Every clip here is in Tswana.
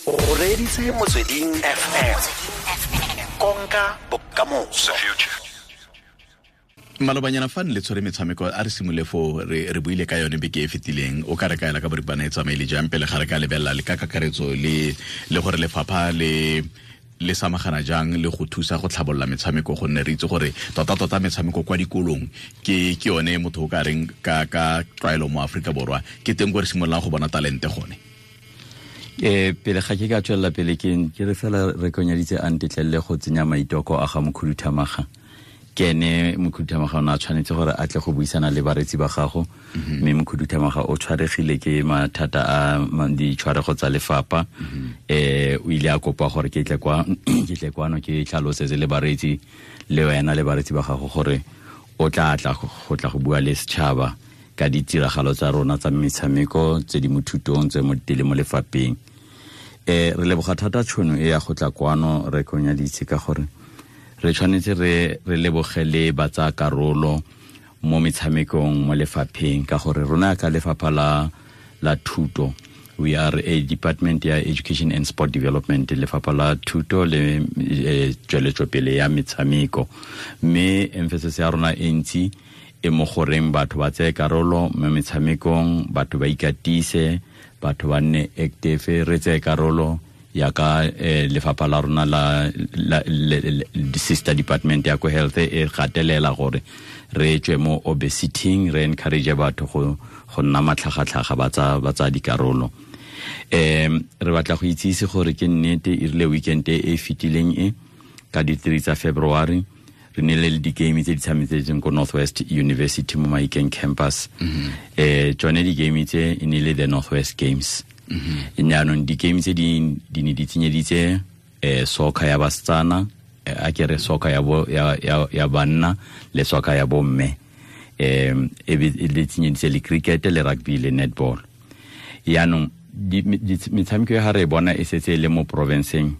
O reditse Motsweding FM, konka bokamoso. Malobanyana fa ne le tshwere metshameko, a re simole fo re buile ka yone beke e fetileng. O ka re kaela ka boripana e tsamaile jang pele ga re ka lebelela le ka kakaretso le gore lefapha le samagana jang le go thusa go tlhabolola metshameko, gonne re itse gore tota-tota metshameko kwa dikolong ke yone motho o ka reng ka tlwaelo mo Aforika Borwa ke teng ko re simololang go bona talente gone. Pele ga ke ka tswelela pele, ke re fela re konyaditse a ntetlelele go tsenya maitoko a ga mokhuduthamaga. Ke ene mokhuduthamaga o ne a tshwanetse gore a tle go buisana le baretsi ba gago, mme mokhuduthamaga o tshwaregile ke mathata a ditshwarego tsa lefapha. O ile a kopa gore ke tle kwa ke tle kwano ke tlhalosetse le baretsi le wena le baretsi ba gago gore o tla tla go tla go bua le setšhaba ka ditiragalo tsa rona tsa metshameko tse di mo thutong, tse mo tele mo lefapheng. Re leboga thata tšhono e ya go tla kwano re konyaditse, ka gore re tshwanetse re leboge le ba tsaya karolo mo metshamekong mo lefapheng, ka gore rona ka lefapha la thuto, we are a department ya education and sport development, lefapha la thuto le tsweletsopele ya metshameko, mme emphasis ya rona e ntsi e mo goreng batho ba tseye karolo mo metshamekong, batho ba ikatise, batho ba nne active, re tseye karolo ya ka lefapha la rona la sister department ya ko health e gatelela gore re tswe mo obesity, re encourage batho go nna matlhagatlhaga, ba tsa dikarolo. Re batla go itsise gore ke nnete e rile weekend e e fetileng e ka di-3 tsa February re nile le di-game tse di tshametsetseng ko Northwest University mo Mahikeng campus. Tsone di-game tse e ne le the Northwest Games. Jaanong di-game tse di ne di tsenyeditse soccer ya basetsana, a ke re soccer ya, bo, ya, ya, ya banna le soccer ya bomme, e be le tsenyeditse le cricket le rugby le netball. Yaanong metshameko e ga re e bona e setse e le mo provinceng,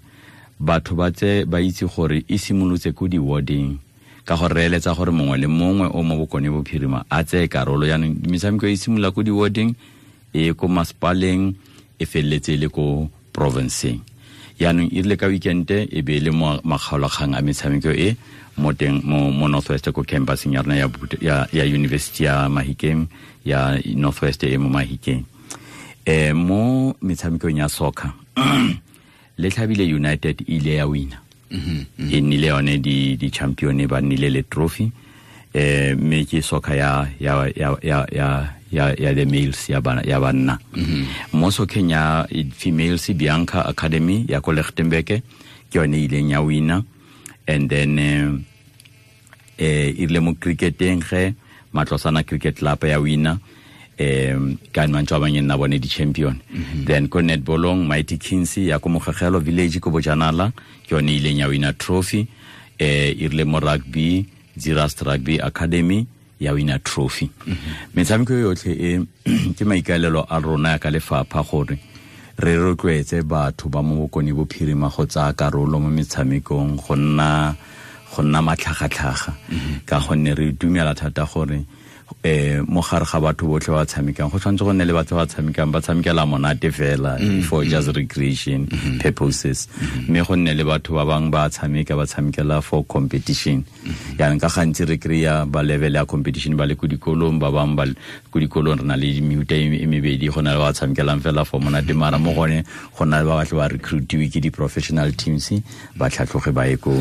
batho ba tse ba itse gore e simolotse ko di-warding, ka gore re eletsa gore mongwe le mongwe o mo Bokone Bophirima a tseye karolo. Yaanong metshameko e simolola ko di-warding, e ko masepaleng, e feleletse e le ko provinceng. Yaanong e rile ka weekend e be e le mo makgaolakgang a metshameko e mo teng mo Northwest ko campuseng ya rona ya university ya Mahikeng, ya Northwest e mo Mahikeng. Mo metshamekong ya soccer, le tlhabile United ile ya wina, e nnile yone di champion, ba nnile le trophy. Mme ke soccer ya the males, ya bana, ya banna. Mo socceng ya females, Bianca Academy ya ko Lichtenburg ke yone e ileng ya wina. And then e rile mo cricketeng ge Matlosana Cricket Club ya wina, ka mantswe a bangwe nna bone di-champion. Then ko netballong, Mighty Kings ya ko Mogegelo Village ko Bojanala ke yone e ileng ya wina trophy. E rile mo rugby, Zeerust Rugby Academy ya wina trophy. Metshameko yotlhe e ke maikaelelo a rona ya ka lefapha gore re rotloetse batho ba mo Bokone Bophirima go tsaya karolo mo metshamekong, go nna matlhagatlhaga, ka gonne re dumela thata gore mo gare ga batho botlhe ba tshamekang go tshwanetse go nne le batho ba tshamekang ba tshamekela monate fela, for just recreation purposes, mme go nne le batho ba bangwe ba tshameka ba tshamekela for competition. Yaanong ka gantsi re kry-a ba level ya competition ba le ko dikolong, ba bangwe ba ko dikolong. Re na le mehuta e mebedi: go na le ba tshamekelang fela for monate, mara mo gone go na le ba batle ba recruitiwe ke di-professional teams, ba tlhatlhoge ba ye ko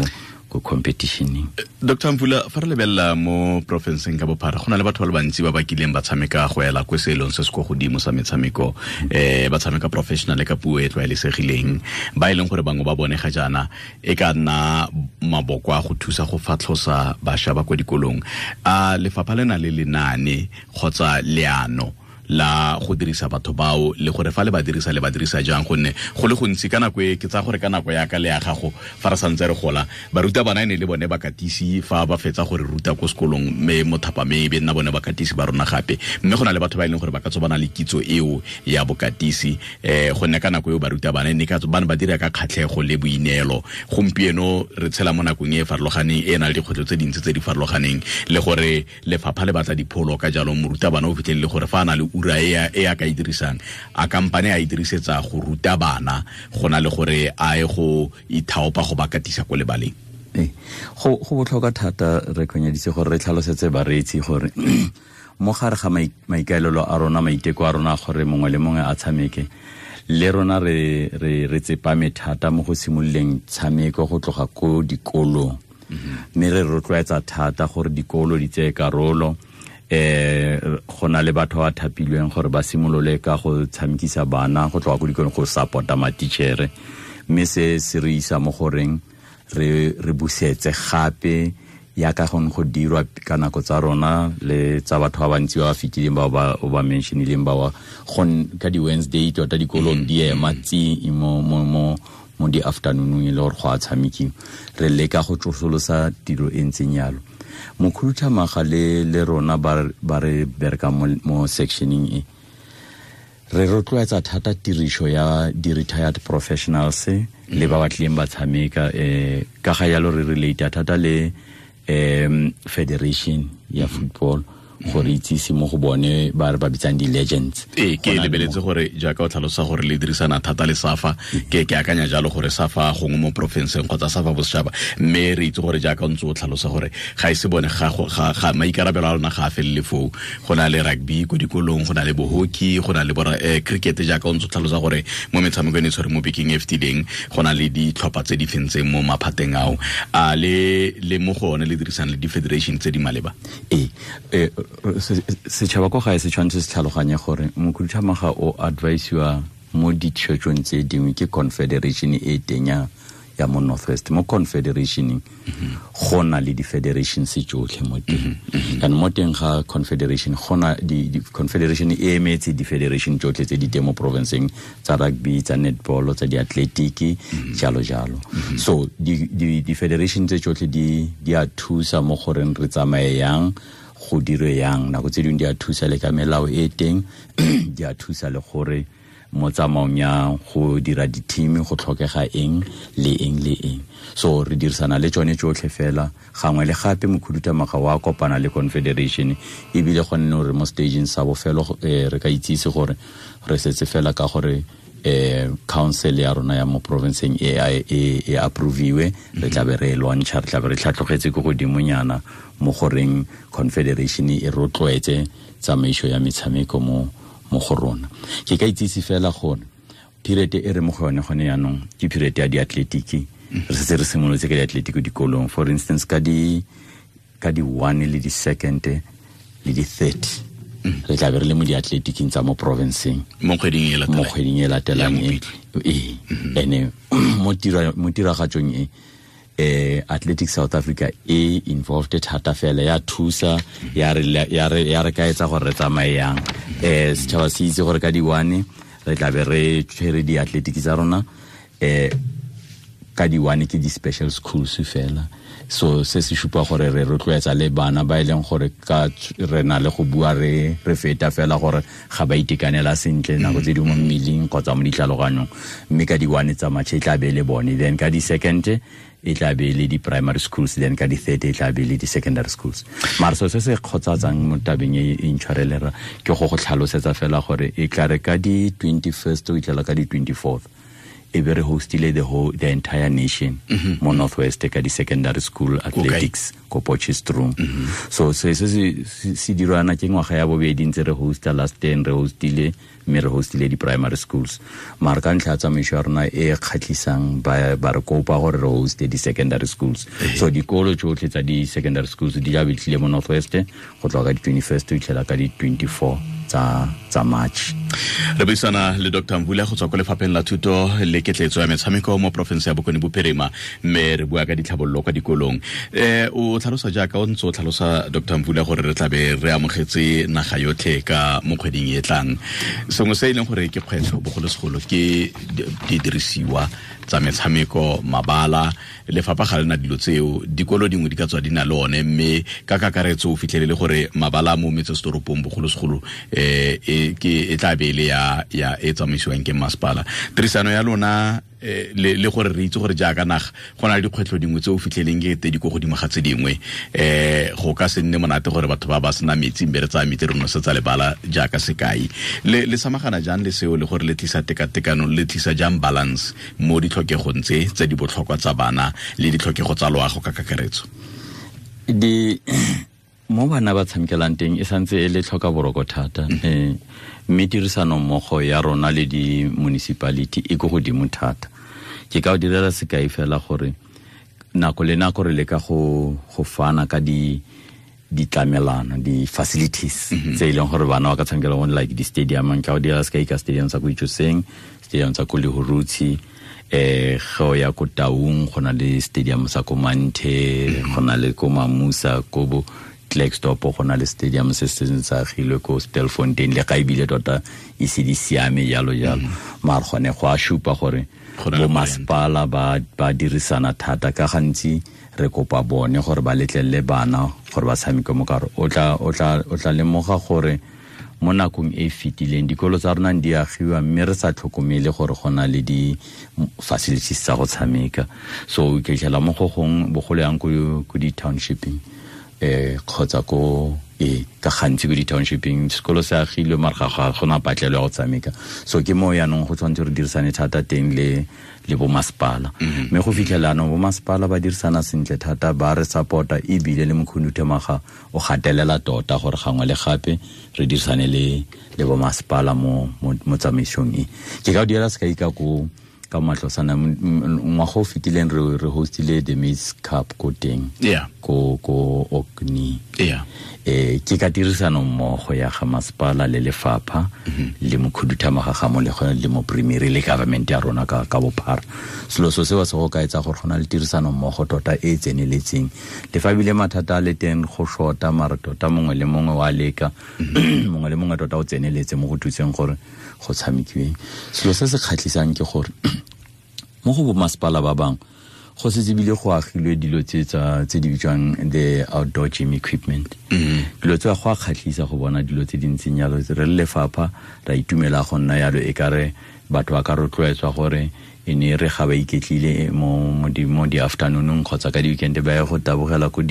competitioneng. Dr Mvula, fa re lebelela mo porofenseng ka bophara, go na le batho ba le bantsi ba ba kileng ba tshameka go ela ko seelong se se ko godimo sa metshameko, ba tshameka professional ka puo e tlwaelesegileng, ba e leng gore bangwe ba bone ga jaana e ka nna maboko a go thusa go fatlhosa bašwa ba kwa dikolong. A lefapha le na le lenaane kgotsa leano la go dirisa batho bao, le gore fa le ba dirisa, le ba dirisa jang? Gonne go le gontsi ka nako e ke tsaya gore ka nako ya ka le ya gago fa re santse re gola, baruta bana e ne le bone bakatisi fa ba fetsa gore ruta ko sekolong, mme mo thapameng e be nna bone bakatisi ba rona gape. Mme go na le batho ba e leng gore ba ka tswa ba na le kitso eo ya bokatisi, gonne ka nako eo baruta bana ne ka ba ne ba dira ka kgatlhego le boineelo. Gompieno re tshela mo nakong e e farologaneng, e e nang le dikgwetlho tse dintsi tse di farologaneng, le gore lefapha le batla dipholo. Ka jalo morutabana o fitlhelele gore fa a na le ura e a ka e dirisang a kampane a e dirisetsa go ruta bana go na le gore a ye go ithaopa go ba katisa ko lebaleng? Go botlhokwa thata re kgonyeditse gore re tlhalosetse bareetsi gore mo gare ga maikaelelo a rona, maiteko a rona gore mongwe le mongwe a tshameke, le rona re tsepame thata mo go simololeng tshameko go tloga ko dikolong. Mme re rotloetsa thata gore dikolo di tseye karolo. Go na le batho ba thapilweng gore ba simolole ka go tshamekisa bana go tloga ko dikolong go support-a matichere, mme se se re isa mo goreng re busetse gape ya ka gone go dirwa ka nako tsa rona le tsa batho ba bantsi ba ba fetileng ba ba mentionileng ba ka di-Wednesday tota dikolong di ema tsi mo di-afternoonong e le gore go a tshamekiwa. Re leka go tsosolosa tiro e ntseng yalo. Mokhuduthamaga le rona ba re berekang mo sectioneng e, re rotloetsa thata tiriso ya di-retired professionals le ba ba tlileng ba tshameka. Ka ga yalo re relate thata le federation ya football gore itsise mo go bone ba re ba bitsang di-legends. Ke lebeletse gore jaaka o tlhalosa gore le dirisana thata le SAFA, ke akanya jalo gore SAFA gongwe mo porofenseng kgotsa SAFA bosetšhaba, mme re itse gore jaaka o ntse o tlhalosa gore ga e se bone ga maikarabelo a lona ga a felele foo. Go na le rugby ko dikolong, go na le bo-hockey, go na le cricket jaaka o ntse o tlhalosa gore mo metshamekong e tshwere mo bekeng e fetileng go na le ditlhopha tse di fentseng mo maphateng ao. A le mo go one le dirisana le di-federation tse di maleba? Setšhaba ko gae se tshwanetse se tlhaloganye gore mokhuduthamaga o advisiwa mo ditshwetsong tse dingwe ke confederation e teng ya mo Northwest. Mo confederationeng go na le di-federations tsotlhe mo teng. Kana mo teng ga confederation go na di-confederation e emetse di-federation tsotlhe tse di teng mo provinceng, tsa rugby, tsa netball, tsa di-athletic, jalo jalo. So di-federation tse tsotlhe di a thusa mo goreng re tsamaye yang, go dirwe yang. Nako tse dingwe di a thusa le ka melao e teng, di a thusa le gore mo tsamaong ya go dira di-team go tlhokega eng le eng le eng. So re dirisana le tsone tsotlhe fela. Gangwe le gape mokhuduthamaga wa kopana le confederation, ebile go nne gore mo stageng sa bofelo re ka itsise gore re setse fela ka gore council ya rona ya mo provinceng e approviwe, re tla be re launcha, re tla be re tlhatlogetse ko godimonyana mo goreng confederation e rotloetse tsamaiso ya metshameko mo go rona. Ke ka itsise fela gore period e re mo go yone gone jaanong ke period ya diatletiki. Re setse re simolotse ka diatletiki dikolong, for instance ka di 1 le di 2 le di 30 re tla be re le mo diatletiking tsa mo provinceng mo kgweding e latelang e. Ene mo tiragatsong e Athletics South Africa e involved thata fela, ya thusa, ya re kaetsa gore re tsamaye yang. Setšhaba se itse gore ka di 1 re tla be re tshwere diatletiki tsa rona. Ka di 1 ke di-special schools fela. So se se supa gore re rotloetsa le bana ba e leng gore ka re na le go bua re feta fela gore ga ba itekanela sentle nako tse dingwe mo mmeleng kgotsa mo ditlhaloganyong, mme ka di 1 tsa March e tla be le bone, then ka di 2 e tla be le di-primary schools, then ka di-3 e tla be le di-secondary schools. Mara so se se kgotsatsang mo tabeng e intshwarelera ke go tlhalosetsa fela gore e tla re ka di-21st o itlhela ka di-24th e be re hostile the entire nation mo Northwest ka di-secondary school athletics ko Potchefstroom. So se se dirwana ke ngwaga ya bobedi ntse re hosta, last year re hostile, mme re hostile di-primary schools. Mara ka ntlha ya tsamaiso ya rona e kgatlhisang ba re kopa gore re hoste di-secondary schools. So dikolo tsotlhe tsa di-secondary schools di tla be tlile mo Northwest go tloga ka di-21st ho itlhela ka di-24 tsa March. Re buisana le Dr. Mvula go tswa ko lefapheng la thuto le ketletso ya metshameko mo porofense ya Bokone Bophirima, mme re bua ka ditlhabololo kwa dikolong. O tlhalosa jaaka o ntse o tlhalosa Dr. Mvula gore re tlabe re amogetse naga yotlhe ka mo kgweding e tlang. Sengwe se e leng gore ke kgwetlho bogolosegolo ke didirisiwa tsa metshameko, mabala. Lefapha ga lena dilo tseo, dikolo dingwe di ka tswa di na le one, mme ka kakaretso o fitlhelele gore mabala mo metsesetoropong bogolosegolo Ke e tla be le ya e tsamaisiwang ke masepala. Tirisano ya lona le gore re itse gore jaaka naga go na le dikgwetlho dingwe tse o fitlheleng ke tse di ko godimo ga tse dingwe, go ka se nne monate gore batho ba ba sena metsi mme re tsaya metsi re nosetsa lebala jaaka sekai. Le samagana jang le seo, le gore le tlisa tekatekano, le tlisa jang balance mo ditlhokegong tse di botlhokwa tsa bana le ditlhokego tsa loago ka kakaretso? Di mo bana ba tshamekelang teng e santse e le tlhoka boroko thata, mme tirisano mmogo ya rona le di-municipality e ko godimo thata. Ke ka o direla sekai fela gore nako le nako re leka go fana ka ditlamelano, di-facilities tse e leng gore bana ba ka tshamekela mo, like di-stadium. Nka o direla sekai ka stadium sa ko Itsoseng, stadium sa ko Lehurutshi, go ya ko Taung go na le stadium sa ko Manthe, go na le ko Mamusa, ko bo Klerksdorp go na le stadium se se sa agilwe ko Stilfontein, le ga ebile tota e se di siame jalo jalo. Mare gone go a supa gore bo masepala ba dirisana thata. Ka gantsi re kopa bone gore ba letlelele bana gore ba tshameke mo kare. O tla lemoga gore mo nakong e fetileng dikolo tsa rona di agiwa mme re sa tlhokomele gore go na le di-facilities tsa go tshameka. So o fitlhela mo go gongwe bogolo yang ko di-townshipeng, kgotsa ko ka gantsi ko di-townshipeng sekolo se agilwe mare ga gona patlelo ya go tshameka. So ke mo yaanong go tshwanetse re dirisane thata teng le bo masepala. Mme go fitlhela anong bo masepala ba dirisana sentle thata, ba re support-a, ebile le mokhuduthamaga o gatelela tota gore gangwe le gape re dirisane le bo masepala mo tsamaisong e. Ke ka o direla sekai ka ko ka Matlosana, ngwaga o fetileng re hostile the Maize Cup ko teng, ko Okni. Ke ka tirisano mmogo ya ga masepala le lefapha le mokhuduthamaga ga mo le mo primary le government ya rona ka bophara. Selo so seo se go ka etsa gore go na le tirisano mmogo tota e tseneletseng. Le fa ebile mathata a le teng go shota, mare tota mongwe le mongwe wa leka, mongwe le mongwe tota o tseneletse mo go thuseng gore go tshamekiweng. Selo se se kgatlhisang ke gore mo go bo masepala ba bangwe go setse ebile go agilwe dilo tse di bitswang the outdoor gym equipment. Dilo tse go a kgatlhisa go bona dilo tse di ntseng jalo. Re le lefapha ra itumela go nna jalo, e kare batho ba ka rotloetswa gore e ne re ga ba iketlile mo di-afternoonong kgotsa ka di-weekend ba ye go tabogela ko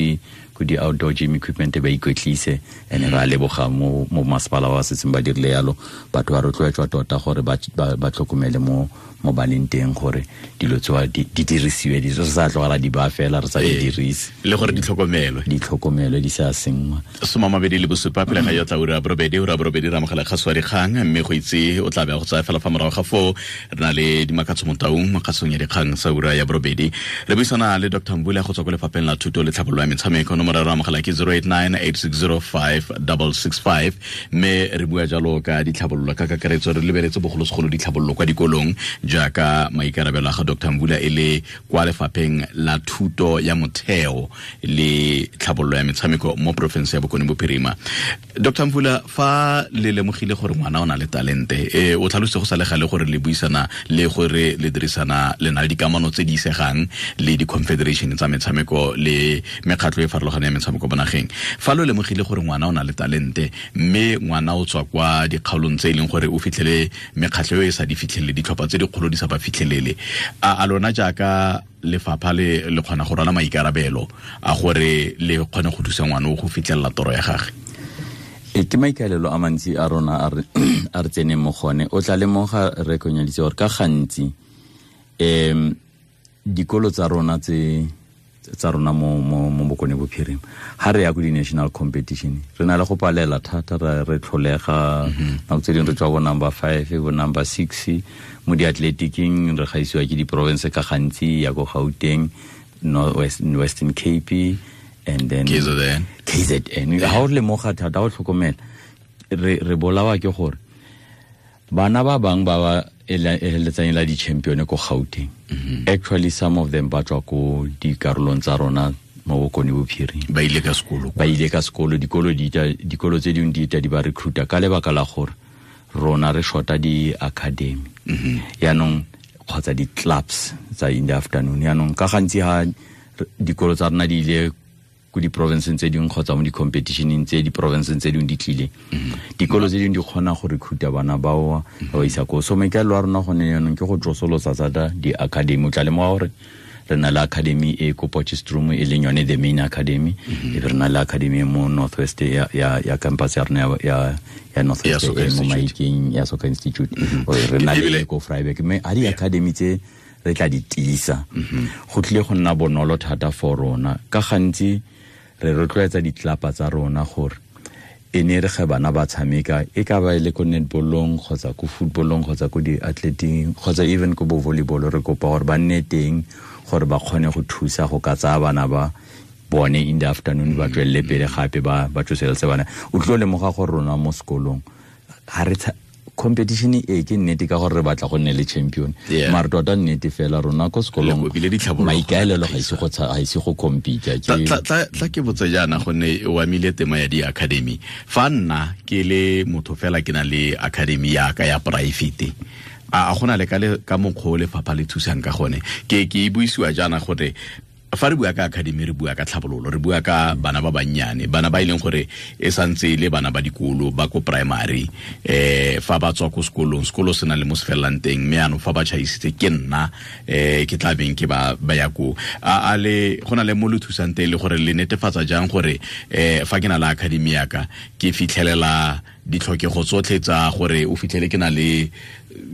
di-outdoor gym equipment ba ikwetlise. And re a leboga mo masepala ba setseng ba dirile yalo. Batho ba rotloetswa tota gore ba tlhokomele mo baneng teng gore dilo tsewa di dirisiwe, di re sa tlogela di ba fela re sa di dirise, le gore di tlhokomelwe di sa senngwa. 27 pele ga ya tla ura borobedi ra amogela kgaso ya dikgang, mme go itse o tla be go tsaya fela fa morago ga foo re na le Dimakatso Motaung mo kgasong ya dikgang sa ura ya borobedi. Re buisana le Dr. Mvula go tswa ko lefapheng la thuto le tlhabololo ya metshameko. Nomoro ya re amogela ke 089 8605 665, mme re bua jalo ka ditlhabololo ka kakaretso, re lebeletse bogolosegolo ditlhabololo kwa dikolong jaaka maikarabelo a ga Dr. Mvula e le kwa lefapheng la thuto ya motheo le tlhabololo ya metshameko mo porofense ya Bokone Bophirima. Dr. Mvula, fa le lemogile gore ngwana o na le talente, o tlhalositse go sa le gale gore le buisana le gore le dirisana le na le dikamano tse di isegang le di-confederation tsa metshameko le mekgatlho e farologaneng ya metshameko mo nageng. Fa lo lemogile gore ngwana o na le talente mme ngwana o tswa kwa dikgaolong tse e leng gore o fitlhele mekgatlho e sa di fitlhelele, ditlhopha tse dikgolo di sa ba fitlhelele, a lona jaaka lefapha le kgona go rwala maikarabelo a gore le kgone go thusa ngwana o go fitlhelela toro ya gagwe? Ke maikaelelo a mantsi a rona a re tseneng mo gone. O tla lemoga re konyaditse gore ka gantsi dikolo tsa rona tse tsa rona mo Bokone Bophirima ha re ya ko di-national competition re na le go palela thata, re tlholega nako tse dingwe re tswa bo number 5 bo number 6 mo di-athletiking, re gaisiwa ke di-province ka gantsi ya ko Gauteng, Western Cape and then KZN. Ha o lemoga thata o tlhokomela re bolawa ke gore bana ba bang ba ba eletsang la di-champion ko Gauteng, actually some of them ba tswa ko dikarolong tsa rona mo Bokone Bophirima, ba ile ka sekolo, dikolo tse dingwe di ita di ba recruita ka lebaka la gore rona re shota di-academy yaanong kgotsa di-clubs tsa in the afternoon. Yaanong ka gantsi ha dikolo tsa rona di ile ko di-provinceng tse dingwe kgotsa mo di-competitioneng tse di-provinceng tse dingwe di tlile, dikolo tse dingwe di kgona go recruita bana bao ba ba isa koo. So maikaelelo a rona gone jaanong ke go tsosolosa thata di-academy. O tla lemoga gore re na le academy e ko Potchefstroom, e leng yone the main academy, e be re na le academy mo Northwest ya campus ya rona ya Northwest e mo Mahikeng ya Soccer Institute, re na le ko Vryburg. Mme a di-academy tse re tla di tiisa, go tlile go nna bonolo thata for rona. Ka gantsi re rotloetsa ditlapa tsa rona gore e ne re ge bana ba tshameka, e ka ba e le ko netballong kgotsa ko footballong kgotsa ko di-athleting kgotsa even ko bo volleyball, re kopa gore ba nne teng gore ba kgone go thusa go ka tsaya bana ba bone in the afternoon, ba tswelele pele gape ba tsoseletse bana. O tlo lemoga gore rona mo sekolong ga re competition e ke nnete ka gore re batla go nne le champion, mare tota nnete fela rona ko sekolong maikaelelo ga ise go compete. Tla ke botse jaana, gonne o amile tema ya di-academy. Fa nna ke le motho fela ke na le academy ya ka ya private, a gona le ka mokgwa o lefapha le thusang ka gone? Ke e buisiwa jaana gore fa re bua ka academy, re bua ka tlhabololo, re bua ka bana ba bannyane, bana ba e leng gore e santse e le bana ba dikolo ba ko primary, fa ba tswa ko sekolong, sekolo se na le mo se felelang teng, mme anong fa ba tšhaisitse ke nna ke tla beng ke ba ya koo. A le go na le mo le thusang teng, le gore le netefatsa jang gore fa ke na le academy ya ka ke fitlhelela ditlhokego tsotlhe tsa gore o fitlhele ke na le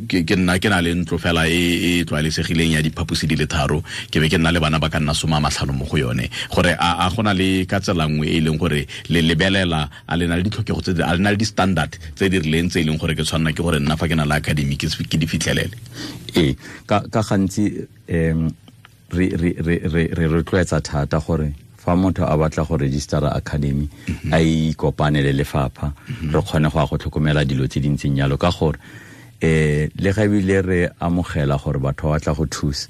ke nna ke na le ntlo fela e tlwaelesegileng ya diphaposi di le 3, ke be ke nna le bana ba ka nna 50 mo go yone, gore a gona le ka tsela nngwe e leng gore le lebelela a le na le ditlhokego tse a le na le di-standard tse di rileng tse e leng gore ke tshwanela ke gore nna fa ke na le academy ke di fitlhelele? Ee, ka gantsi re rotloetsa thata gore fa motho a batla go registera academy a ikopane le lefapha, re kgone go ya go tlhokomela dilo tse di ntseng jalo, ka gore le ga ebile re amogela gore batho ba batla go thusa,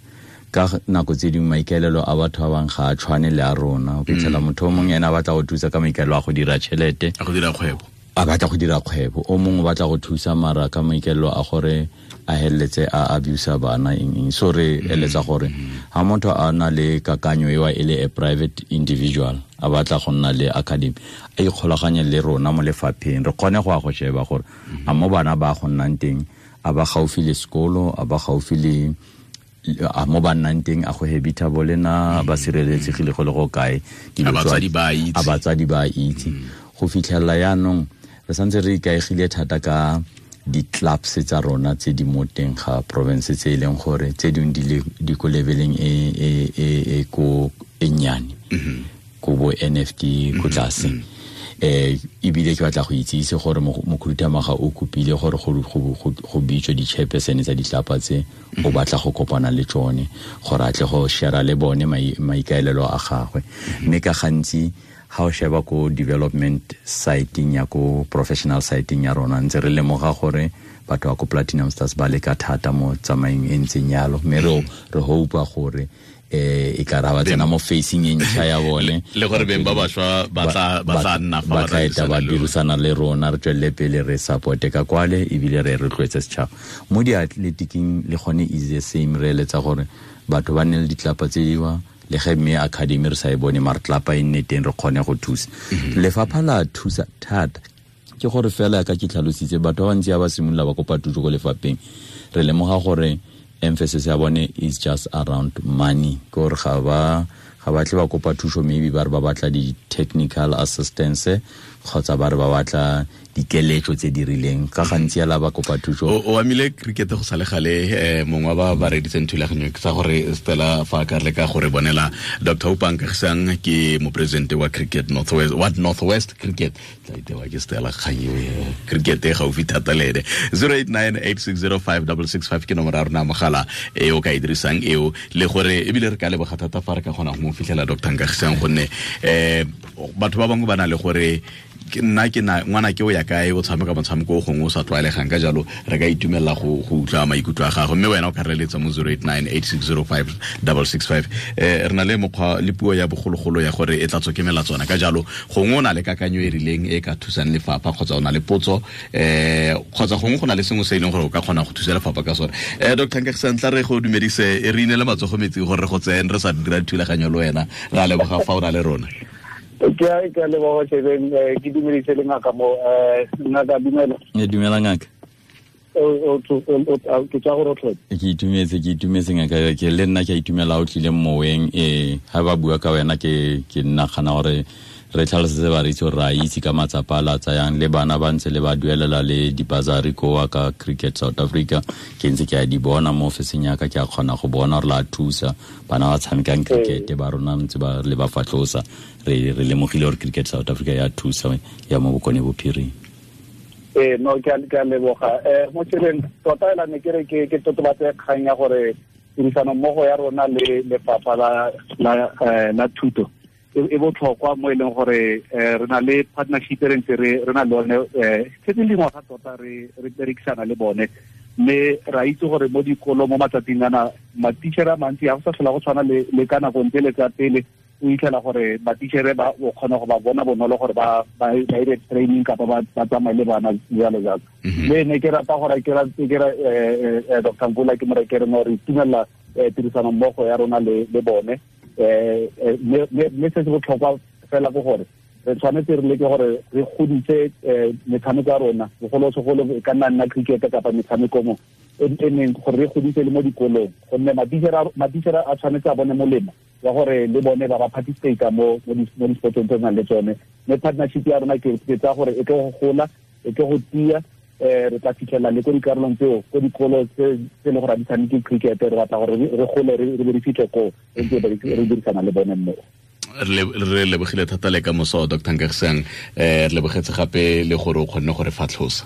ka nako tse dingwe maikaelelo a batho ba bangwe ga a tshwane le a rona. O fitlhela motho o mongwe ene a batla go thusa ka maikaelelo a go dira tšhelete, a go dira kgwebo, a batla go dira kgwebo, o mongwe o batla go thusa mara ka maikaelelo a gore a heletse a abusa bana eng. So re eletsa gore ha motho a na le kakanyo ewa e le a private individual a batla go nna le academy, a ikgolaganye le rona mo lefapheng, re kgone go ya go sheba gore a mo bana ba go nnang teng a ba gaufi le sekolo, a ba gaufi le a mo ba nnang teng, a go habitable na, ba sireletsegile go le go kae, a batsadi ba itse. Go fitlhela yaanong re santse re ikaegile thata ka di-clubs tsa rona tse di mo teng ga province, tse e leng gore tse dingwe di ko leveleng e ko e nnyane, ko bo NFT ko tlase. Ebile ke batla go itsise gore mokhuduthamaga o kopile gore go bitswe di-chairperson tsa ditlapa tse, o batla go kopana le tsone gore a tle go share le bone maikaelelo a gagwe. Mme ka gantsi ha o sheba ko development siting ya ko professional siting ya rona, ntse re lemoga gore batho ba ko Platinum Stars ba leka thata mo tsamaeng e ntseng yalo, mme re hopa gore e ka ra ba tsena mo facing e ntšha ya bone, le gore beng ba bašwa ba tla nna fa ba dirisana le rona, re tswelele pele re supporte ka kwale, ebile re rotloetse setšhaba mo diatletiking. Le gone is the same, re eletsa gore batho ba nne le ditlapa tse diwa, le ge mme academy re sa e bone mare tlapa e nne teng, re kgone go thusa. Lefapha la thusa thata, ke gore fela ka ke tlhalositse batho ba bantsi ba simolola ba kopa thuso ko lefapheng, re lemoga gore emphasis ya bone is just around money, gore ga ba batle ba kopa thuso, maybe ba re ba batla di-technical assistance kgotsa ba re ba batla dikeletso tse di rileng. Ka gantsi ala ba kopa thuso. O amile cricket go sale gale, mongwe ba ba reditseng thulaganyo ke sa gore Stella fa ka le ka gore bonela Dr. Upang Kagisang ke mopresidente wa Cricket Northwest, wa Northwest Cricket, tla itewa ke Stella Kgang cricket e gaufi thata le ene. 0898605665 ke nomoro ya rona mogala e o ka e dirisang eo, le gore ebile re ka leboga thata fa re ka kgona go mo fitlhela Dr. Kagisang, gonne batho ba bangwe ba na le gore nna ke na ngwana ke o ya kae o tshameka motshameko o gongwe o sa tlwaelegang, ka jalo re ka itumelela go utlwa maikutlo a gagwe, mme wena o ka reletsa mo 0898605665. Re na le mokgwa le puo ya bogologolo ya gore e tla tswa ke melatswana, ka jalo gongwe o na le kakanyo e rileng e ka thusang lefapha, kgotsa o na le potso kgotsa gongwe go na le sengwe se e leng gore o ka kgona go thusa lefapha ka sone. Dr. Nkagisang, tla re go dumedise, re inele matsogo metsing gore re go tsene re sa dira thulaganyo le wena, ra leboga fa o na le rona. Ke a leboga Shebeng, ke dumedise le ngaka mo, ngaka dumela. E dumela ngaka. Ke tswa go rotlhe. Ke itumetse ngaka, ke le nna ke a itumela o tlile moweng, ha ba bua ka wena ke nagana gore re tlhalosetse bareetsi gore re a itse ka matsapa a la tsayang le bana ba ntse le ba duelela le dibasari koa ka Cricket South Africa. Ke ntse ke a di bona mo ofising ya ka, ke a kgona go bona gore la thusa bana ba tshamekang cricket ba rona ntse ba le ba fatlosa. Re lemogile gore Cricket South Africa ya thusa ya mo Bokone Bophirima. No, ke a leboga. Mo tseleng tota ela ne ke re ke totobatse kgang ya gore tirisano mmogo ya rona le lefapha la thuto e botlhokwa mo e leng gore re na le partnership re ntse re na le one setse dingwaga tota re berekisana le bone, mme ra itse gore mo dikolong mo matsatsing ana matichere a mantsi ga go sa tlhola go tshwana le ka nako ntse le tsa pele. O itlhela gore matichere ba o kgona go ba bona bonolo gore ba dire training kapa ba tsamaye le bana jalo jalo. Mme ne ke rata gore ke Dr. Mvula ke mo re ke re no re itumela tirisano mmogo ya rona le bone. Mme se se botlhokwa fela ke gore re tshwanetse re leke gore re godise metshameko ya rona, bogolosegolo e ka nna cricket kapa metshameko mo e neng gore re godise le mo dikolong, gonne matichere a tshwanetse a bone molemo wa gore le bone ba participate mo di-sportong tse nang le tsone. Mme partnership ya rona ke tsaya gore e tlo go gola, e tlo go tia, re tla fitlhela le ko dikarolong tseo, ko dikolo tse e leng gore ga di tshameke cricket, re batla gore re gole re be re fitlhe koo re ntse re dirisana le bone mmogo. Re lebogile thata le ka moso Dr. Nkagisang, re lebogetse gape le gore o kgonne gore fatlhosa.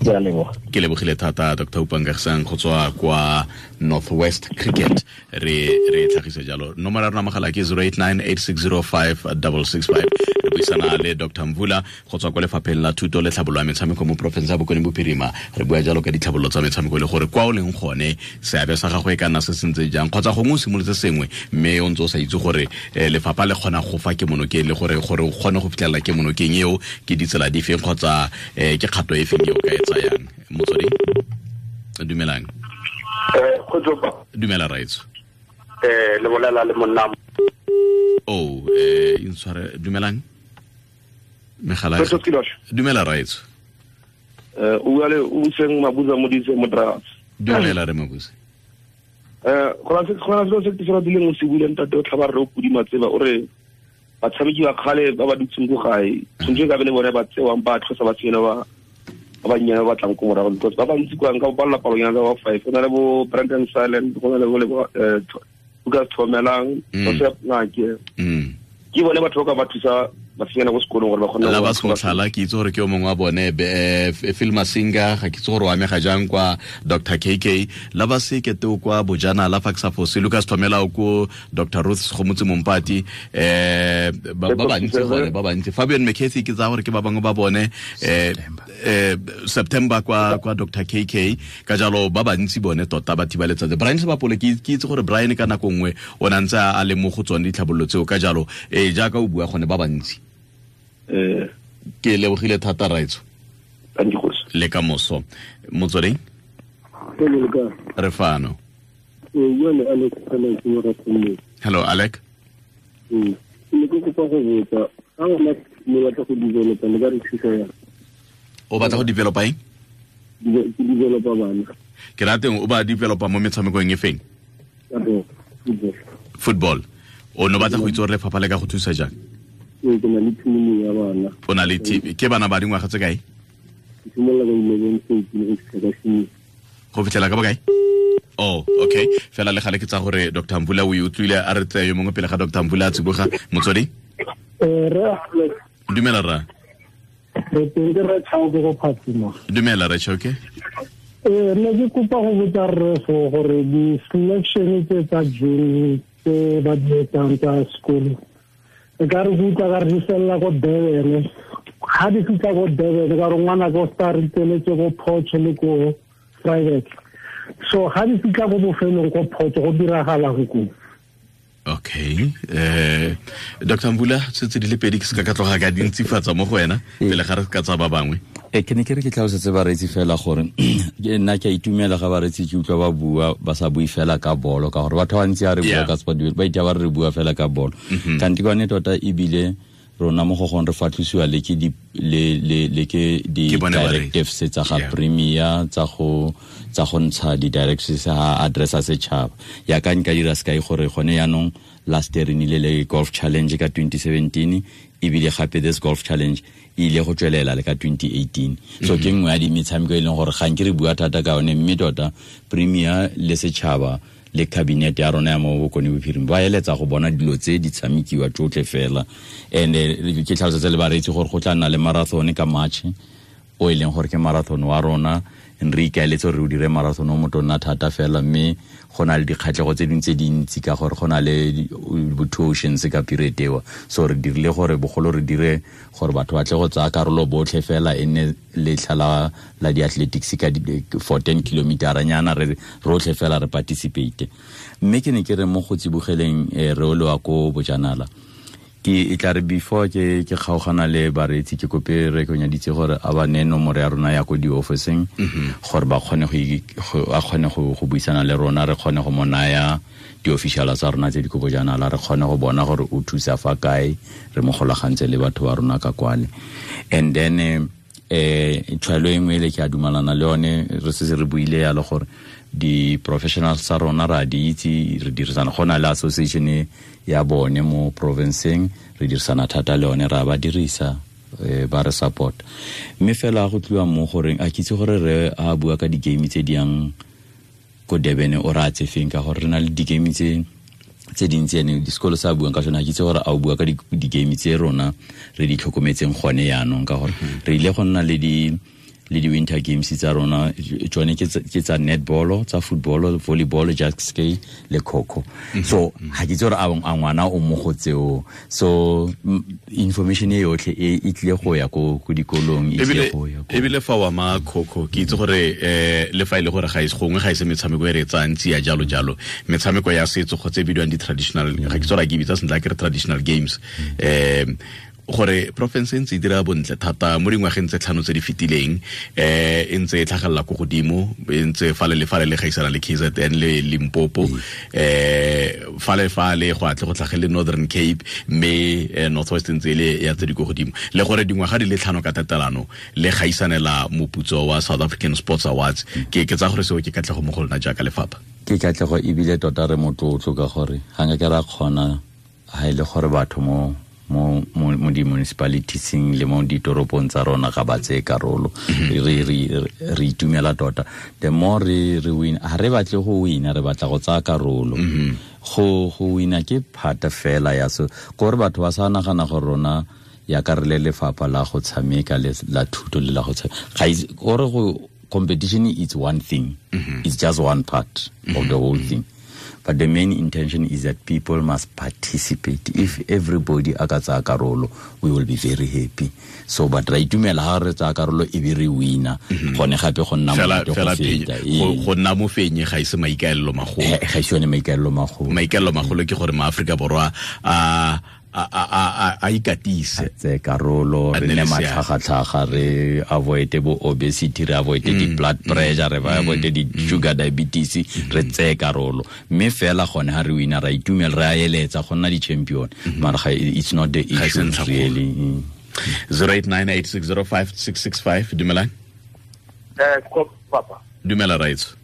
Ke lebogile thata Dr. Oupa Nkagisang go tswa kwa Northwest Cricket. Re tlhagise jalo. Nomoro ya rona mogala ke 0898605665. Re buisana le Dr. Mvula go tswa kwa lefapheng la thuto le tlhabololo ya metshameko mo porofense ya Bokone Bophirima. Re bua jalo ka ditlhabololo tsa metshameko le gore kwa o leng gone seabe sa gago e ka nna se sentse jang, kgotsa gongwe o simolotse sengwe mme o ntse o sa itse gore lefapha le kgona go fa kemonokeng le gore o kgone go fitlhelela kemonokeng eo ke ditsela di feng kgotsa ke kgato e feng eo ka e tsayang. Motswedi, dumelang. Dumela raitso. Le bolela le monna. Oh, intshware, dumelang. Megala. Dumela raitso. O bua le o seng Mabuza Modise mo Dragons. Dumela re Mabuza. Go na se se se dileng o se buileng ntate o tlhaba re o pudi matseba o re batshameki ba kgale ba ba dutseng ko gae tshwanetse ka be le bone ba tsewang ba tlhosa ba tsena ba bannyane ba batlang ko morago, because ba bantsi kwa nka ba balla palonyana tsa ba 5, go na le bo Brandon Silent, go na le bo Lucas Thomelang, Joseph Ngake. Ke bone batho ba ka ba thusa basenyana ko sekolong gore ba kgone la ba semotlhala. Ke itse gore ke o mongwe wa bone, Phil Masinga, ga ke itse gore o amega jang kwa Dr. KK, la ba sekete o kwa Bojanala fa ke sa fose, Lucas Thomela o ko Dr. Ruth Segomotsi Mompati, ba bantsi gone, ba bantsi. Fabian McCarthy ke tsaya gore ke ba bangwe ba bone, September kwa Dr. KK, ka jalo ba bantsi bone tota ba thiba letsatsi. Brian Sebapole ke itse gore Brian ka nako nngwe o ne ntse a le mo go tsone ditlhabololo tseo, ka jalo jaaka o bua gone ba bantsi. Ke lebogile thata raitso. Le ka moso. Motsweding? Re fano. Hello Alec. O batla go developa eng? Ke developa bana. Ke rateng o ba developa mo metshamekong e feng? Football. O no batla go itse gore lefapha le ka go thusa jang? Ke na le team ya bana. O na le team. Ke bana ba dingwaga tse kae? Ke simolola ka 11 13 go fitlha ka 6. Go fitlhela ka bokae? Oh, okay. Fela le gale ke tsa gore Dr. Mvula o e utlwile, a re tseye yo mongwe pele ga Dr. Mvula a tsiboga. Motswedi? Re Dumela ra. Re teng ke re Chauke go Phatsima. Dumela re Chauke. Ne ke kopa go botsa rre fo gore di-selection tse tsa June tse ba di etsang tsa sekolo e ka re utlwa ka re di felela ko Durban. Ga di fitlha ko Durban ka gore ngwana ko star re tsweletse ko Potch le ko private. So ga di fitlha ko bofelong ko Potch go diragalang ko? Okay. Dr. Mvula, setse di le pedi ke se ka tloga ka dintsifatsa mo go wena pele ga re ka tsa ba bangwe. Ke ne ke re ke tlhalosetse bareetsi fela gore nna ke a itumela ga bareetsi ke utlwa ba bua ba sa bue fela ka bolo, ka gore batho ba bantsi a re bua ka sport ba itha ba re bua fela ka bolo. Kanti kwane tota ebile Rona mo go gong re fatlhosiwa le ke di le ke di directives tsa ga premier tsa go ntsha di directives ha addressa setšhaba. Ya ka nka dira sekai gore gone yaanong last year re nile le golf challenge ka 2017, ebile gape this golf challenge e ile go tswelela le ka 2018. So ke nngwe ya di metshameko e leng gore ga nke re bua thata ka yone, mme tota premier le setšhaba le cabinet ya rona ya mo Bokone Bophirima ba eletsa go bona dilo tse di tshamekiwa tsotlhe fela. And ke tlhalosetsa le bareetsi gore go tla nna le marathon ka March, o e leng gore ke marathon wa rona. Re ikaeletse gore re o dire marathon o motonna thata fela, mme go na le dikgatlhego tse dingwe tse dintsi ka gore go na le bo two oceans ka period eo. So re dirile gore bogolo re dire gore batho ba tle go tsaya karolo botlhe fela, e nne letlha la di-athletics ka for 10 kilometer nyana, re rotlhe fela re participate. Mme ke ne ke re mo go tsibogeleng re o lewa ko bojanala, ke e tla re before ke kgaogana le bareetsi ke kope re konyaditse gore a ba ne nomoro ya rona ya ko di-officing, gore ba kgone go go buisana le rona, re kgone go mo naya di-officiala tsa rona tse di ko bojanala, re kgone go bona gore o thusa fa kae, re mo golagantse le batho ba rona ka kwale. And then tshwaelo e nngwe le ke a dumalana le yone, re setse re buile yalo gore di-professionals tsa rona ra di itse, re dirisana, go na le association ya bone mo provinceng, re dirisana thata le yone, ra ba dirisa, ba re support. Mme fela go tliwa mo goreng a kitse gore re a bua ka di-game tse di yang ko Durban, o ra tse feng, ka gore re na le di-game tse dintsi ene disekolo sa buang ka sone. A kitse gore a o bua ka di-game tse rona re di tlhokometseng gone yaanong, ka gore re ile go nna le di winter games tsa rona, tsone ke tsa netball, tsa football, volleyball, jet ski le kho-kho. So ha ke itse gore a ngwana o mo go tseo. So information e yotlhe e tlile go ya ko dikolong, e tlile go ya ko. Ebile fa wa ma kho-kho, ke itse gore le fa ile gore ga ise gongwe ga ise metshameko e re tsang tsia jalo jalo, metshameko ya setso go tse bidiwang di traditional, ga ke tsora ke bitsa sentle ke re traditional games, gore province e ntse e dira bontle thata mo dingwageng tse tlhano tse di fetileng, e ntse e tlhagelela ko godimo, e ntse fale le fale le gaisana le KZN le Limpopo, fale fale go atle go tlhagele Northern Cape, mme North West ntse le ya tse di ko godimo, le gore dingwaga di le tlhano ka tatelano le gaisanela moputso wa South African Sports Awards. Ke tsa gore seo ke katlego mo go lona jaaka lefapha. Ke katlego ebile tota re motlotlo ka gore ga nka ke ra kgona ha e le gore batho mo di-municipalitieseng le mo ditoropong tsa rona ga ba tseye karolo. Re itumela tota. The more re win, ha re batle go wina, re batla go tsaya karolo. Go wina ke phata fela ya so gore batho ba sa nagana gore rona ya ka re le lefapha la go tshameka le la thuto le la go tshameka. Gore go competition is one thing. It's just one part of the whole thing. But the main intention is that people must participate. If everybody a ka tsaya karolo, we will be very happy. So but ra itumela ha re tsaya karolo e be re wina. Gone gape go nna monate go feta. Go nna mofenyi ga ise maikaelelo magolo. Ga ise yone maikaelelo magolo. Maikaelelo magolo ke gore maAfrika Borwa a ikatise, tse karolo, re nne matlhagatlhaga, re avoid bo obesity, re avoid di blood pressure, re avoid di sugar diabetes, re tse karolo. Mme fela gone ha re wina ra itumela, re a eletsa go nna di champion, mara it's not the issue really. 0898605665. Dumelang. Papa. Dumela raitso.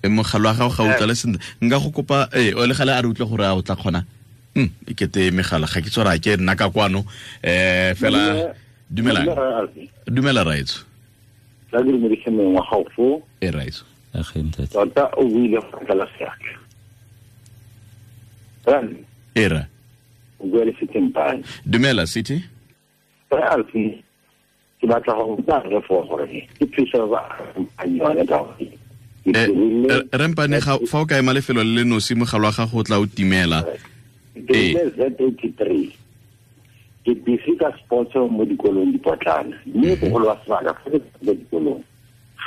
E mogala wa gago ga o tlale sentle, nka go kopa o le gale a re utlwe gore a o tla kgona. E kete megala ga ke tsora ke nna ka kwano, fela dumela. Dumela raitso. Tla ke dumedise mongwe wa gago foo. E raitso. Tota o buile go tlala seatla. Era. O bua le City Mpane. Dumela City. Re Alfi, ke batla go botsa re fo gore ke thuso ba yone ka gore Rempane ga fa o ka ema lefelo le le nosi mogala wa gago o tla o timela. Ke Z83. Ke busy ka sports mo dikolong dipotlana, mme bogolo ba sebaka fa ke dikolong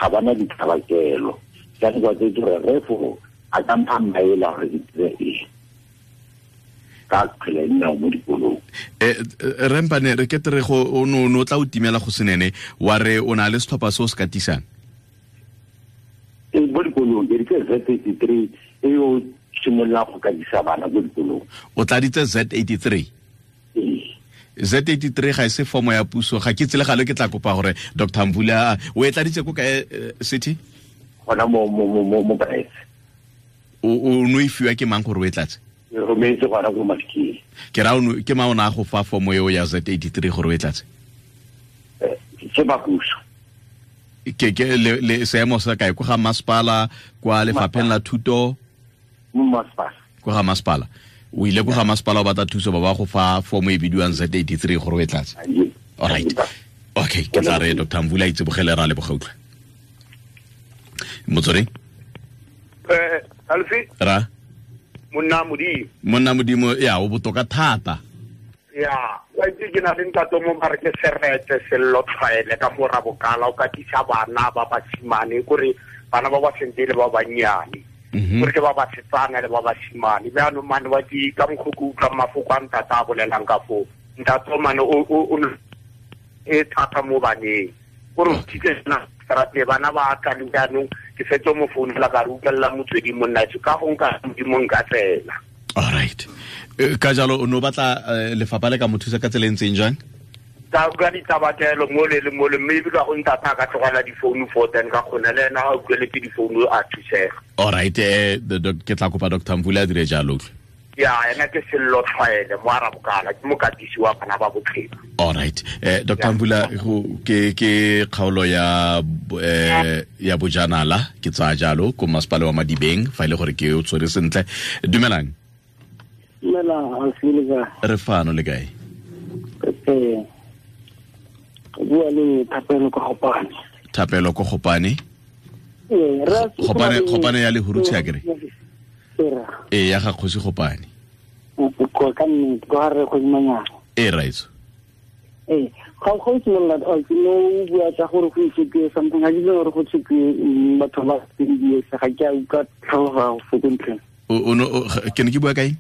ga bana ditlhabakelo. Jaanong kwa tse gore re fo a ka mpha maele gore ke dire eng ka kgwele ya dinao mo dikolong. Rempane re kete re go o no tla o timela go senene, wa re o na le setlhopha se o se katisang mo dikolong. Ke ditse Z83 e o simolola go katisa bana ko dikolong. O tladitse Z83? Z83 ga e se formo ya puso, ga ke tsele gale ke tla kopa gore Dr. Mvula o e tladitse ko kae city? Gona mo mo O no e fiwa ke mang gore o e tlatse? Re rometse gona ko Mafikeng. Ke ra ke mang o ne a go fa formo eo ya Z83 gore o e tlatse? Ke ba puso. Ke le seemo sa kae, ko ga masepala, kwa lefapheng la thuto? Masepala. Ko ga masepala. O ile ko ga masepala o batla thuso, ba ba go fa formo e bidiwang Z83 gore o e tlatse. All right. Okay, ke tla re Dr. Mvula itse bogele ra le bogautlwa. Motsweding? Alfi? Ra? Monna Modimo. Monna Modimo, ya o botoka thata. Ya, wa itse ke na le ntate mo mare ke serete sello tlhwaele ka mo rabokala o katisa bana ba basimane kore bana ba ba sentele ba bannyane. Gore ke ba basetsana le ba basimane. Jaanong mane wa ke ka mokgwa ke utlwang mafoko a ntate a bolelang ka foo. Ntate mane o e thata mo baneng. Gore o thitse na strate bana ba tla le jaanong ke fetse mo founela ka re utlwelela motswedi monna ka go nka modimo nka tsela. All right. Ka jalo o no batla lefapha le ka mo thusa ka tsela e ntseng jang? Ka utlwa ditabatelo mole le mole, mme ebile go ntata ka tlogela difounu for then ka kgona le ena a utlweletse difounu a thusega. All right, ke tla kopa Dr. Mvula a dire jalo. Ya, ena ke sello tlhwaele mo arabokala, ke mokatisi wa bana ba bophelo. All right. Dr. Mvula, ke kgaolo ya ya bojanala, ke tsaya jalo ko masepala wa Madibeng, fa ile gore ke o tshwere sentle. Dumelang. Dumela, re fano le kae? Bua le Thapelo ko Gopane. Thapelo ko Gopane? Gopane ya Lehurutshe akere? Ee, ya ga kgosi Gopane. Ka nnete, ko ga re kgosi Manyana. Ee, raitso. Ee, ga go simolola ke no bua tsa gore go itshepiwe something, ga ke itse gore go tshepiwe batho ba tse ga ke a utlwa tlhaloga go fo ntlheng. Ke ne ke bua kae?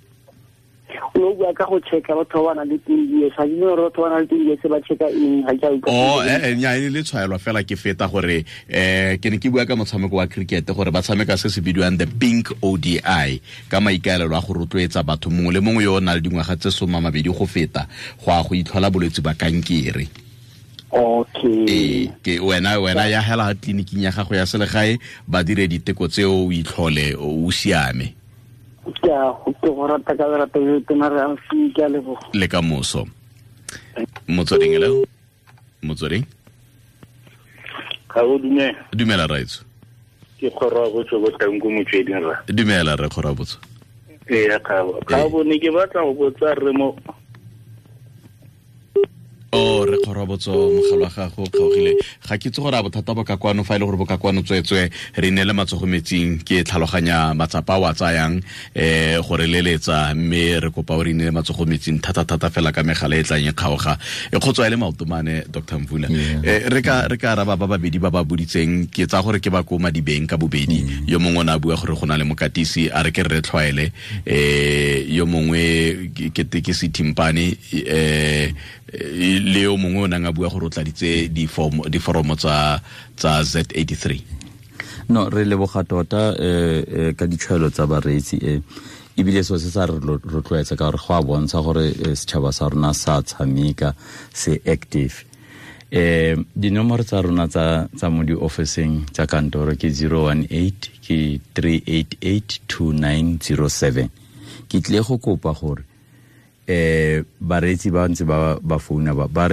O bua ka go checka batho ba nang le 10 years, ga ke gore batho ba nang le 10 years ba checka eng, ga ke a utlwa. Oh, nya e le tshwaelwa fela ke feta gore ke ne ke bua ka motshameko wa cricket gore ba tshameka se se bidiwang the Pink ODI ka maikaelelo a go rotloetsa batho mongwe le mongwe yo o nang le dingwaga tse 20 go feta go a go itlhola bolwetse ba kankere. Okay. Ke wena ya hela tleliniking ya gago ya selegae ba dire diteko tseo o itlhole o siame. Ke a go rata ka rata ke a leboga. Le ka moso. Motsweding hello. Motsweding. Ga o dumela. Dumela raitso. Ke kgoro botso bo tlang ko motsweding ra. Dumela re kgoro botso. Ee ga ga bone ke batla go botsa re mo. O re kgoro botso mogala wa gago kgaogile. Ga ke itse gore a bothata bo ka kwano fa ile gore bo ka kwano tswetswe re neele matsogo metsing ke tlhaloganya matsapa wa tsayang gore leletsa mme re kopa o re neele matsogo metsing thata thata fela ka megala e tlang e kgaoga e kgotswa ile maotomane Dr. Mvula. Re ka araba ba babedi ba ba boditseng ke tsa gore ke ba ko Madibeng ka bobedi. Yo mongwe o ne a bua gore go na le mokatisi a re ke re tlhwaele yo mongwe ke se Timpane le yo mongwe o nang a bua gore o tladitse diforomo tsa Z83. No, re leboga tota ka ditshwaelo tsa bareetsi ebile so se sa re rotloetsa ka gore go a bontsha gore setšhaba sa rona sa tshameka se active. Dinomoro tsa rona tsa mo di-officing tsa kantoro ke 018 ke 388 2907. Ke tle go kopa gore bareetsi ba ntse ba founa ba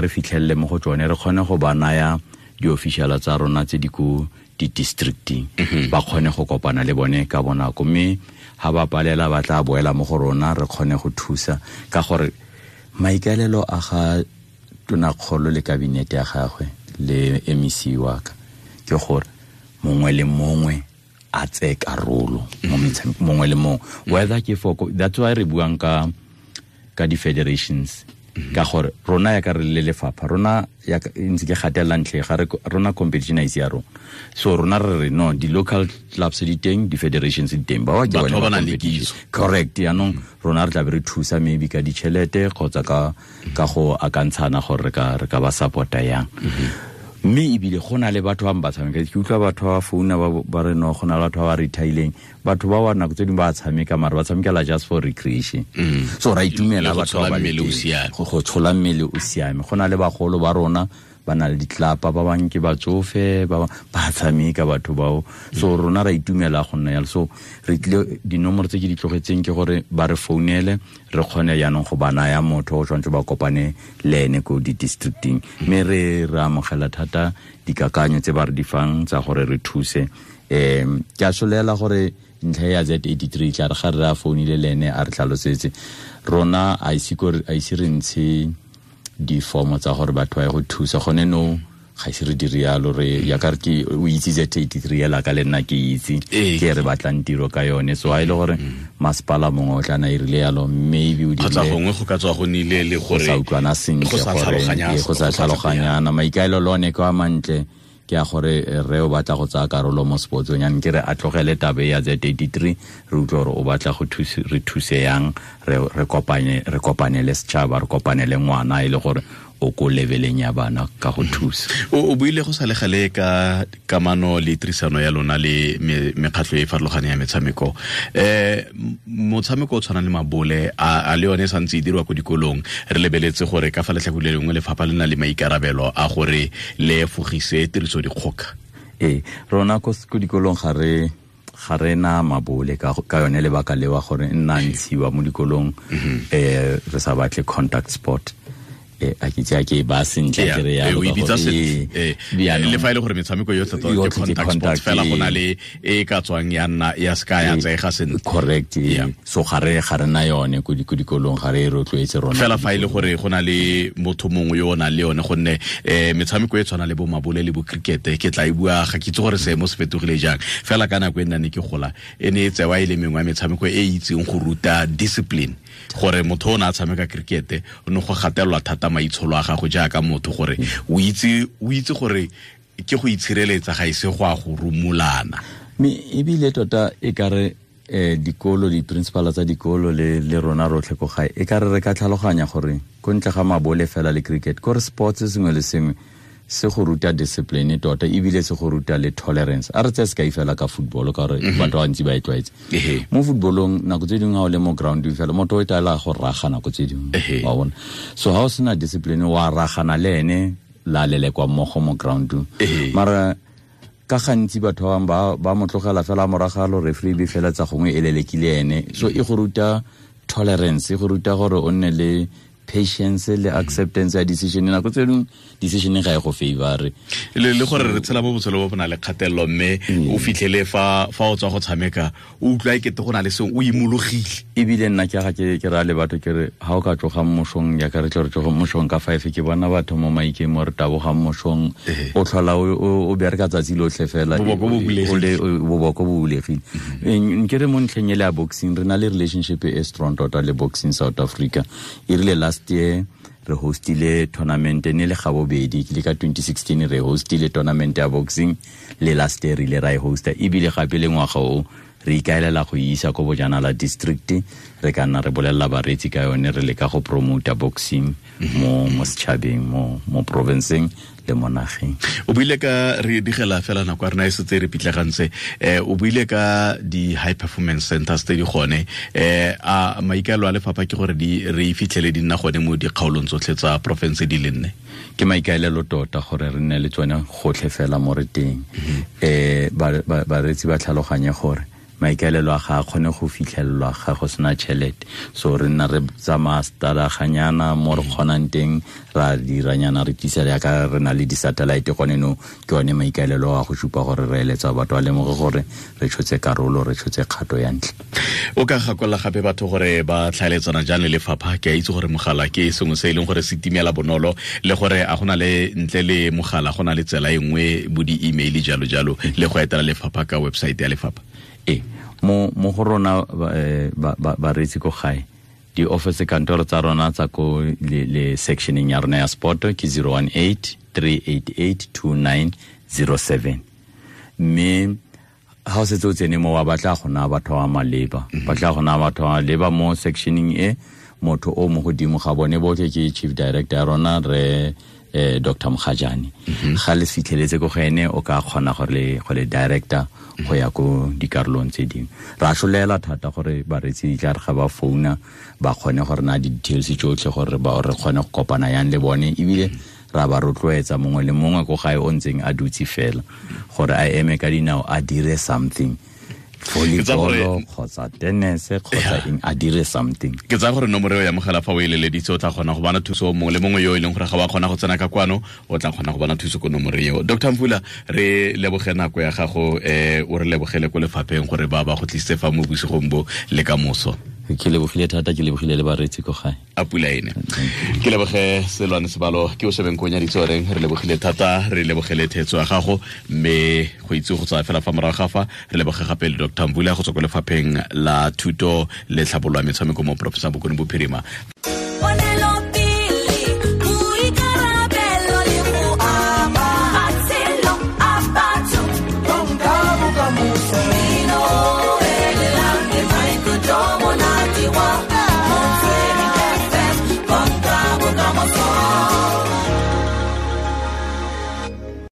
re fitlhelele mo go tsone re kgone go ba naya di-officiala tsa rona tse di ko di-districting ba kgone go kopana le bone ka bonako, mme ha ba palela ba tla boela mo go rona re kgone go thusa ka gore maikaelelo a ga tonakgolo le kabinete ya gagwe le MEC wa ka ke gore mongwe le mongwe a tseye karolo mo metshamekong mongwe le mongwe, whether ke for that's why re buang ka di-federations ka gore rona ya ka re le lefapha rona ya ntse ke gatelela ntlhe ga re rona competition a ise ya rona, so rona re re no di-local clubs di teng, di-federations di teng, ba ke bone ba competition correct. Yaanong rona re tla be re thusa maybe ka ditšhelete kgotsa ka go akantshana gore re ka ba supporta yang. Mme ebile go na le batho ba ba tshameka, ke utlwa batho ba founa ba re no go na le batho ba ba retirileng, batho ba wa nako tse dingwe ba tshameka mara ba tshamekela just for recreation. So ra itumela batho ba go tshola mmele o siame. Go na le bagolo ba rona ba na le ditlapa, ba bangwe ke batsofe, ba tshameka batho bao. So rona ra itumela go nna yalo. So re tlile dinomoro tse ke di tlogetseng ke gore ba re founele, re kgone jaanong go ba naya motho o tshwanetse ba kopane le ene ko di-districting. Mme re amogela thata dikakanyo tse ba re di fang tsa gore re thuse. Ke a solela gore ntlha ya Z83 tla re ga re a founile le ene a re tlhalosetse. Rona a ise re ntshe difomo tsa gore batho ba ye go thusa gone no, ga ise re dire yalo. Re ya ka re ke o itse Z83 ela ka le nna ke itse ke re batlang tiro ka yone. So ha ile gore masepala mongwe o tla na irile yalo, maybe o kgotsa gongwe go ka tswa go nile le gore go sa utlwana sentle, gore go sa tlhaloganyana. Maikaelelo one ke a mantle, ke a gore re o batla go tsaya karolo mo sportsong, yang ke re a tlogele tabe ya Z83, re utlwe gore o batla go re thuse yang, re kopane le setšhaba, re kopane le ngwana e le gore o ko leveleng ya bana ka go thusa. O buile go sa le gale ka kamano le tirisano ya lona le mekgatlho e farologaneng ya metshameko. Motshameko o tshwanang le mabole a le yone e santse e dirwa ko dikolong, re lebeletse gore ka fa letlhakore le lengwe lefapha le na le maikarabelo a gore le efogise tiriso dikgoka. Rona ko dikolong ga re na mabole ka yone lebaka lewa gore nna ntshiwa mo dikolong, re sa batle contact sport. A ke tse ke ba sentle ke re ya o bitsa sentle le fa ile gore metshameko yotlhe tota ke contact sport fela go na le e ka tswang ya nna ya ska ya tsega sentle. Correct. So ga re na yone ko dikolong, ga re rotloetse rona fela fa ile gore go na le motho mongwe yo o nang le yone, gonne metshameko e tshwana le bo mabole le bo cricket ke tla e bua, ga ke itse gore seemo se fetogile jang, fela ka nako e nna ne ke gola e ne e tsewa e le mengwe ya metshameko e itseng go ruta discipline, gore motho o ne a tshameka cricket o ne go gatelelwa thata maitsholo a gago jaaka motho, gore o itse gore ke go itshireletsa ga ise go a go rumulana. Mme ebile tota e ka re dikolo, di-principal tsa dikolo le rona rotlhe ko gae, e ka re re ka tlhaloganya gore ko ntle ga mabole fela le cricket, kore sports sengwe le sengwe se go ruta discipline tota, ebile se go ruta le tolerance. A re tseye sekai fela ka football, ka gore batho ba bantsi ba e tlwaetse. Mo footballong nako tse dingwe ha o le mo ground fela motho o itaela go raga nako tse dingwe, wa bona. So ha o sena discipline wa ragana le ene la lelekwa mmogo mo ground. Mara ka gantsi batho ba bangwe ba mo tlogela fela moragalo, referee be fela tsa gongwe e lelekile ene. So e go ruta tolerance, e go ruta gore o nne le patience le acceptance ya decision. Nako tse dingwe decision ga e go favor le gore re tshela mo botshelo bo bo na le kgatelelo, mme o fitlhele fa o tswa go tshameka o utlwa ekete go na le sengwe o imologile. Ebile nna ke ga ke ra le batho ke re ha o ka tloga mošong, ya ka re tlo re tloga mošong ka 5, ke bona batho mo maikeng mo re tabogang mošong, o tlhola o bereka tsatsi lotlhe fela, boboko bo bulegile. Nke re mo ntlheng e le ya boxing, re na le relationship e strong tota le Boxing South Africa. E rile last year re hostile tournament ne le gabobedi, ke le ka 2016 re hostile tournament ya boxing, le last year re ile ra e hosta, ebile gape le ngwaga o re ikaelela go isa ko Bojanala district. Re ka nna re bolelela bareetsi ka yone, re leka go promota boxing mo setšhabeng, mo provinceng le mo nageng. O buile ka re digela fela nako ya rena e setse re pitlegantse, o buile ka di high performance centers tse di gone, a maikaelelo a lefapha ke gore di re fitlhele di nna gone mo dikgaolong tsotlhe tsa province di le nne? Ke maikaelelo tota gore re nne le tsone gotlhe fela mo re teng. Bareetsi ba tlhaloganye gore maikaelelo a ga a kgone go fitlhelelwa ga go sena tšhelete. So re nna re tsamaya stadaganyana mo re kgonang teng, ra diranyana, re tlisa yaka re na le di-satellite gone no. Ke one maikaelelo a go supa gore re eletsa batho ba lemoge gore re tshotse karolo, re tshotse kgato ya ntlha. O ka gakolola gape batho gore ba tlhaeletsana jang le lefapha? Ke a itse gore mogala ke sengwe se e leng gore se timela bonolo, le gore a gona le ntle le mogala go na le tsela e nngwe bo di-email jalo jalo, le go etela lefapha ka website ya lefapha. Mo go rona bareetsi ko gae, di-office kantoro tsa rona tsa ko le sectioneng ya rona ya sport ke 018 388 2907. Mme ha o setse o tsene mo wa batla go naya batho ba maleba, batla go naya batho ba maleba mo sectioneng e, motho o mo godimo ga bone botlhe ke chief director ya rona re Dr. Mogajane. Ga le fitlheletse ko go ene, o ka kgona gore go le director go ya ko dikarolong tse dingwe. Ra solela thata gore baretsi di tla re ga ba founa ba kgone gore na di-details tsotlhe gore ba re kgone go kopana yang le bone, ebile ra ba rotloetsa mongwe le mongwe ko gae o ntseng a dutse fela gore a eme ka dinao a dire something, volleyball kgotsa tennis kgotsa eng, a dire something. Ke tsaya gore nomoro eo ya mogala fa o e leleditse o tla kgona go bona thuso mongwe le mongwe yo e leng gore ga wa kgona go tsena ka kwano, o tla kgona go bona thuso ko nomoro eo. Dr. Mvula, re leboge nako ya gago, o re lebogele ko lefapheng gore ba go tlisitse fa mo bosigong bo le ka moso. Ke lebogile thata, ke lebogile le bareetsi ko gae. A pula ene. Ke leboge Selwane Sebalo, ke o shebeng ko nyaditse oreng, re lebogile thata, re lebogele thetso ya gago, mme go itse go tsaya fela fa morago ga fa, re leboge gape le Dr. Mvula go tswa ko lefapheng la thuto le tlhabololo ya metshameko mo porofenseng Bokone Bophirima.